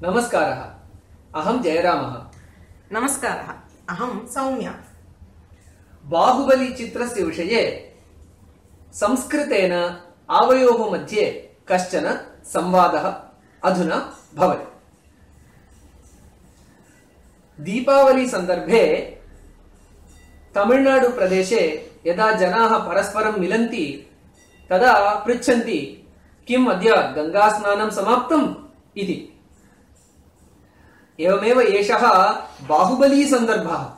नमस्कारः। अहं जयरामः। नमस्कारः। अहं सौम्या। बाहुबली चित्रस्य विषये संस्कृतेन आवयोः मध्ये कश्चन संवादः अधुना भवति। दीपावली सन्दर्भे तमिळुनाडु प्रदेशे यदा जनाः परस्परं मिलन्ति तदा पृच्छन्ति किम् अद्य गंगा स्नानं समाप्तम् इति। एवमेव एषः बाहुबली सन्दर्भः।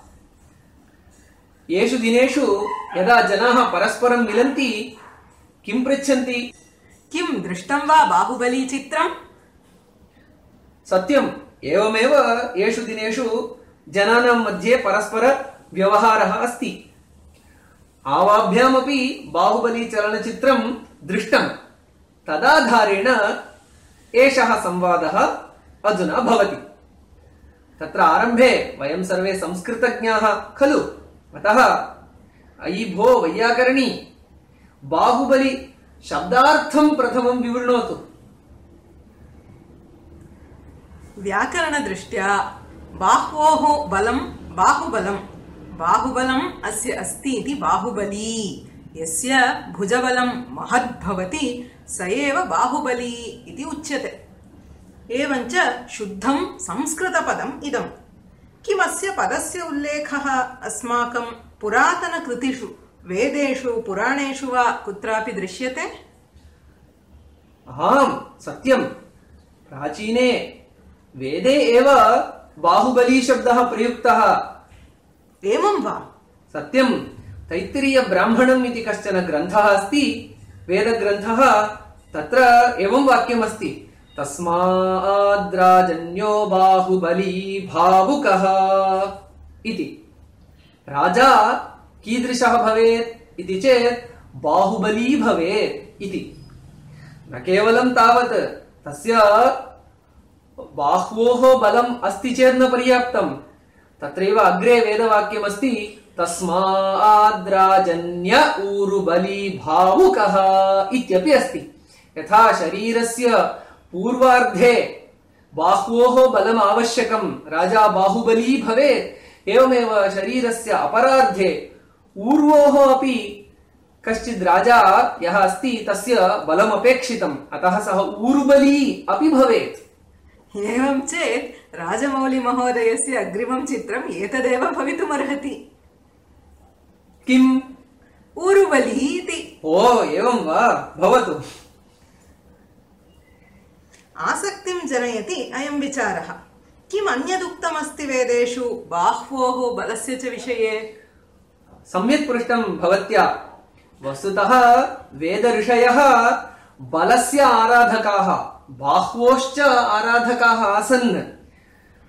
येषु दिनेषु यदा जनाः परस्परं मिलन्ति किं पृच्छन्ति? किं दृष्टं वा बाहुबली चित्रम्? सत्यम्, एवमेव येषु दिनेषु जनानां मध्ये परस्पर व्यवहारः अस्ति। आवाभ्यामपि बाहुबली चलनचित्रं दृष्टं। तदाधारेण एषः संवादः अधुना भवति। तत्र आरम्भे वयं सर्वे संस्कृतज्ञाः खलु, अतः अयि भो वैयाकरणी, बाहुबली शब्दार्थं प्रथमं विवृणोतु। व्याकरणदृष्ट्या बाह्वोः बलं बाहुबलं, बाहुबलम् अस्य अस्ति इति बाहुबली। यस्य भुजबलं महद्भवति स एव बाहुबली इति उच्यते। एवञ्च शुद्धं संस्कृतपदम् इदम्। किमस्य पदस्य उल्लेखः अस्माकं पुरातनकृतिषु, वेदेषु, पुराणेषु वा कुत्रापि दृश्यते? आम्, सत्यम्। प्राचीने वेदे एव बाहुबली शब्दः प्रयुक्तः। एवं वा? सत्यम्। तैत्तिरीय ब्राह्मणम् इति कश्चन ग्रन्थः अस्ति, वेदग्रन्थः। तत्र एवं वाक्यमस्ति, तस्माद्राजन्यो बाहुबली भावुकः इति। राजा कीदृशः भवेत् इति चेत् बाहुबली भवेत् इति। न केवलं तावत्, तस्य बाह्वोः बलम् अस्ति चेत् न पर्याप्तम्। तत्रैव अग्रे वेदवाक्यमस्ति, तस्माद्राजन्य ऊरुबली भावुकः इत्यपि अस्ति। यथा शरीरस्य पूर्वार्धे बाह्वोः बलम् आवश्यकं, राजा बाहुबली भवेत्, एवमेव शरीरस्य अपरार्धे ऊर्वोः अपि कश्चित् राजा यः अस्ति तस्य बलमपेक्षितम्, अतः सः ऊरुबली अपि भवेत्। एवं चेत् राजमौलिमहोदयस्य अग्रिमं चित्रम् एतदेव भवितुमर्हति। किम्? ऊरुबली इति। ओ, एवं वा? भवतु। आसक्तिं जनयति अयं विचारः। किम् अन्यदुक्तमस्ति वेदेषु बाह्वोः बलस्य च विषये? सम्यक् पृष्टं भवत्या। वस्तुतः वेदऋषयः बलस्य आराधकाः, बाह्वोश्च आराधकाः आसन्।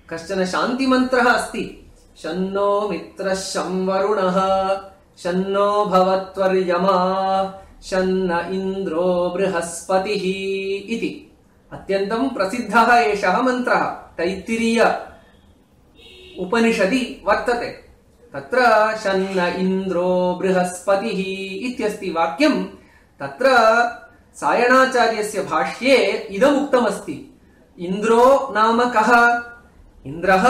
कश्चन शान्तिमन्त्रः अस्ति, शन्नो मित्रः शं वरुणः शन्नो भवत्वर्यमा शन्न इन्द्रो बृहस्पतिः इति। अत्यन्तं प्रसिद्धः एषः मन्त्रः तैत्तिरीय उपनिषदि वर्तते। तत्र शन्न इन्द्रो बृहस्पतिः इत्यस्ति वाक्यं। तत्र सायणाचार्यस्य भाष्ये इदमुक्तमस्ति, इन्द्रो नाम कः? इन्द्रः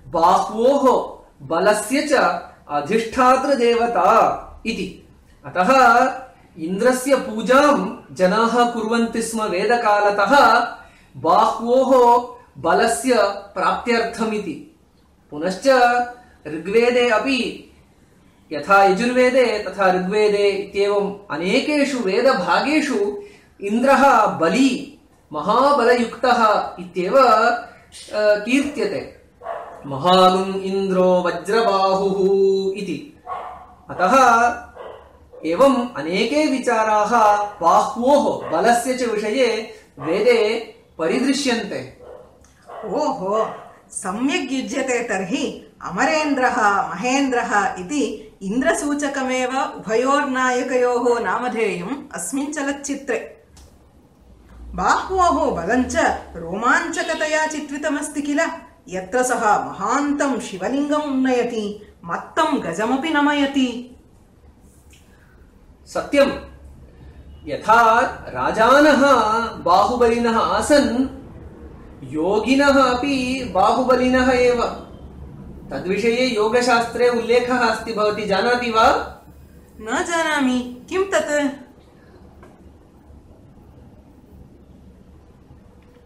बाह्वोः बलस्य च अधिष्ठातृदेवता इति। अतः इन्द्रस्य पूजां जनाः कुर्वन्ति स्म वेदकालतः बाह्वोः बलस्य प्राप्त्यर्थमिति। पुनश्च ऋग्वेदे अपि, यथा यजुर्वेदे तथा ऋग्वेदे इत्येवम् अनेकेषु वेदभागेषु इन्द्रः बली, महाबलयुक्तः इत्येव कीर्त्यते। महागुम् इन्द्रो वज्रबाहुः इति। अतः एवम् अनेके विचाराः बाह्वोः बलस्य च विषये वेदे परिदृश्यन्ते। ओहो, सम्यक् युज्यते तर्हि। अमरेन्द्रः महेन्द्रः इति इन्द्रसूचकमेव उभयोर्नायकयोः नामधेयम् अस्मिन् चलच्चित्रे। बाह्वोः बलञ्च रोमाञ्चकतया चित्रितमस्ति किल। यत्र सः महान्तं शिवलिङ्गम् उन्नयति, मत्तं गजमपि नमयति। सत्यम्। यथा राजानः बाहुबलिनः आसन्, योगिनः अपि बाहुबलिनः एव। तद्विषये योगशास्त्रे उल्लेखः अस्ति, भवती जानाति वा? न जानामि, किं तत्?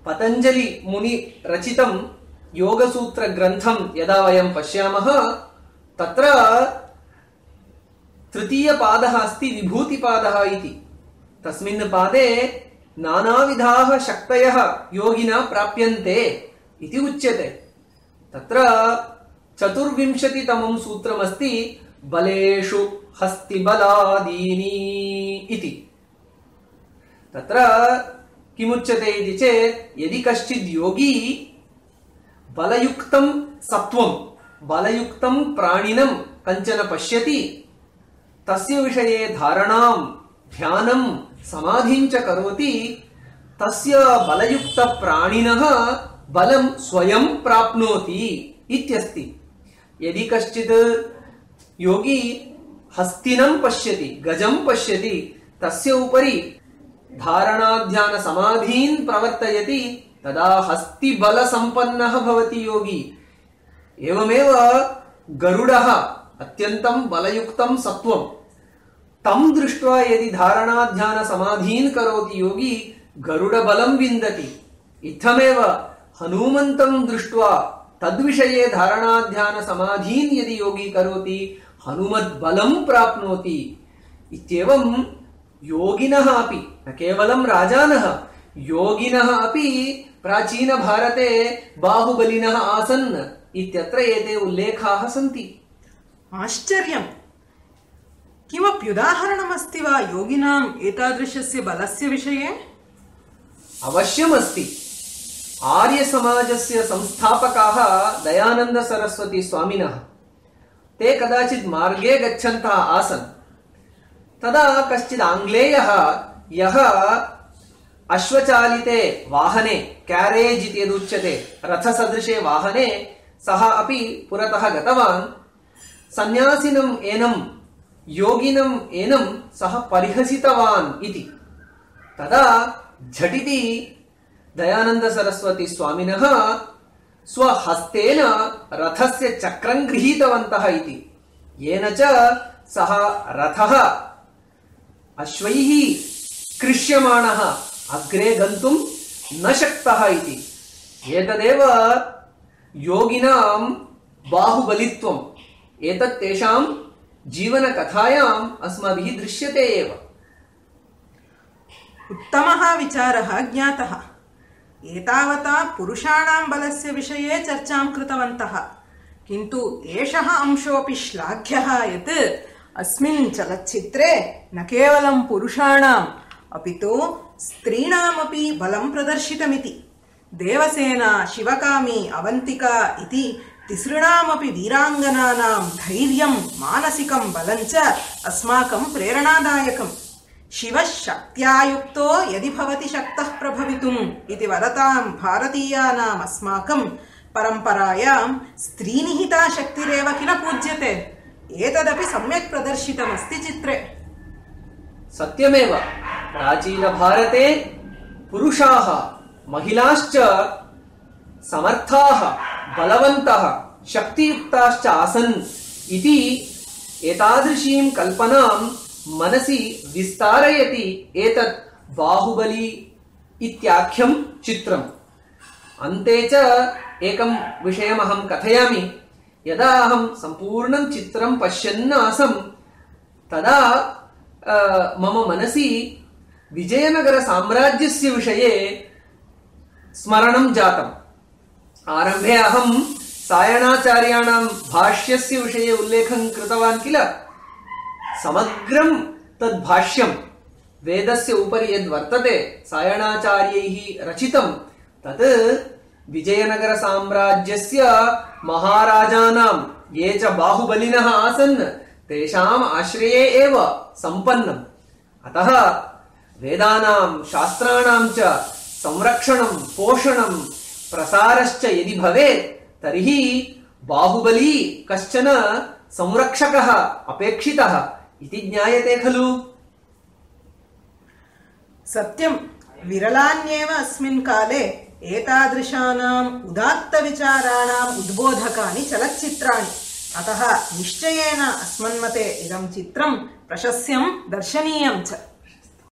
पतञ्जलि मुनि रचितं योगसूत्रग्रन्थं यदा वयं पश्यामः, तत्र तृतीयपादः अस्ति विभूतिपादः इति। तस्मिन् पादे नानाविधाः शक्तयः योगिना प्राप्यन्ते इति उच्यते। तत्र 24तमं सूत्रमस्ति बलेषु हस्तिबलादीनि इति। तत्र किमुच्यते इति चेत्, यदि कश्चित् योगी बलयुक्तं सत्वं, बलयुक्तं प्राणिनं कञ्चन पश्यति, तस्य विषये धारणां, ध्यानं, समाधिं च करोति, तस्य बलयुक्त प्राणिनः बलं स्वयं प्राप्नोति इत्यस्ति। यदि कश्चित् योगी हस्तिनं पश्यति, गजं पश्यति, तस्य उपरि धारणाध्यान समाधीन् प्रवर्तयति, तदा हस्तिबलसम्पन्नः भवति योगी। एवमेव गरुडः अत्यन्तं बलयुक्तं सत्वं, तं दृष्ट्वा यदि धारणाध्यान समाधीन् करोति योगी, गरुडबलं विन्दति। इत्थमेव हनुमन्तं दृष्ट्वा तद्विषये धारणाध्यान समाधीन् यदि योगी करोति, हनुमद्बलं प्राप्नोति। इत्येवं योगिनः अपि, न केवलं राजानः, योगिनः अपि प्राचीन भारते बाहुबलिनः आसन् इत्यत्र एते उल्लेखाः सन्ति। आश्चर्यम्! किमप्युदाहरणमस्ति वा योगिनाम् एतादृशस्य बलस्य विषये? अवश्यमस्ति। आर्यसमाजस्य संस्थापकाः दयानन्द सरस्वती स्वामिनः, ते कदाचित् मार्गे गच्छन्तः आसन्। तदा कश्चित् आङ्ग्लेयः, यः अश्वचालिते वाहने, क्यारेज् इति यदुच्यते, रथसदृशे वाहने, सः अपि पुरतः गतवान्। सन्यासिनम् एनं, योगिनम् एनं सः परिहसितवान् इति। तदा झटिति दयानन्द सरस्वती स्वामिनः स्वहस्तेन रथस्य चक्रं गृहीतवन्तः इति, येन च सः रथः अश्वैः कृष्यमाणः अग्रे गन्तुं न शक्तः इति। एतदेव योगिनां बाहुबलित्वम्। एतत् तेषां जीवनकथायाम् अस्माभिः दृश्यते एव। उत्तमः विचारः ज्ञातः। एतावता पुरुषाणां बलस्य विषये चर्चां कृतवन्तः, किन्तु एषः अंशोऽपि श्लाघ्यः यत् अस्मिन् चलच्चित्रे न केवलं पुरुषाणाम् अपि तु स्त्रीणामपि बलं प्रदर्शितमिति। देवसेना, शिवकामी, अवन्तिका इति तिसृणामपि वीराङ्गनानां धैर्यं, मानसिकं बलं च अस्माकं प्रेरणादायकम्। शिवः शक्त्या युक्तो यदि भवति शक्तः प्रभवितुम् इति वदतां भारतीयानाम् अस्माकं परम्परायां स्त्रीनिहिता शक्तिरेव किल पूज्यते। एतदपि सम्यक् प्रदर्शितमस्ति चित्रे। सत्यमेव, प्राचीनभारते पुरुषाः, महिलाश्च समर्थाः, बलवन्तः, शक्तियुक्ताश्च आसन् इति एतादृशीं कल्पनां मनसि विस्तारयति एतत् बाहुबली इत्याख्यं चित्रम्। अन्ते च एकं विषयमहं कथयामि। यदा अहं सम्पूर्णं चित्रं पश्यन् आसम्, तदा मम मनसि विजयनगरसाम्राज्यस्य विषये स्मरणं जातम्। आरम्भे अहं सायणाचार्याणां भाष्यस्य विषये उल्लेखं कृतवान् किल। समग्रं तद्भाष्यं वेदस्य उपरि यद्वर्तते सायणाचार्यैः रचितं, तत् विजयनगरसाम्राज्यस्य महाराजानां ये च बाहुबलिनः आसन् तेषाम् आश्रये एव सम्पन्नम्। अतः वेदानां, शास्त्राणां च संरक्षणं, पोषणं, प्रसारश्च यदि भवेत्, तर्हि बाहुबली कश्चन संरक्षकः अपेक्षितः इति ज्ञायते खलु। सत्यं, विरलान्येव अस्मिन् काले एतादृशानाम् उदात्तविचाराणाम् उद्बोधकानि चलच्चित्राणि। अतः निश्चयेन अस्मन्मते इदं चित्रं प्रशस्यं दर्शनीयं च।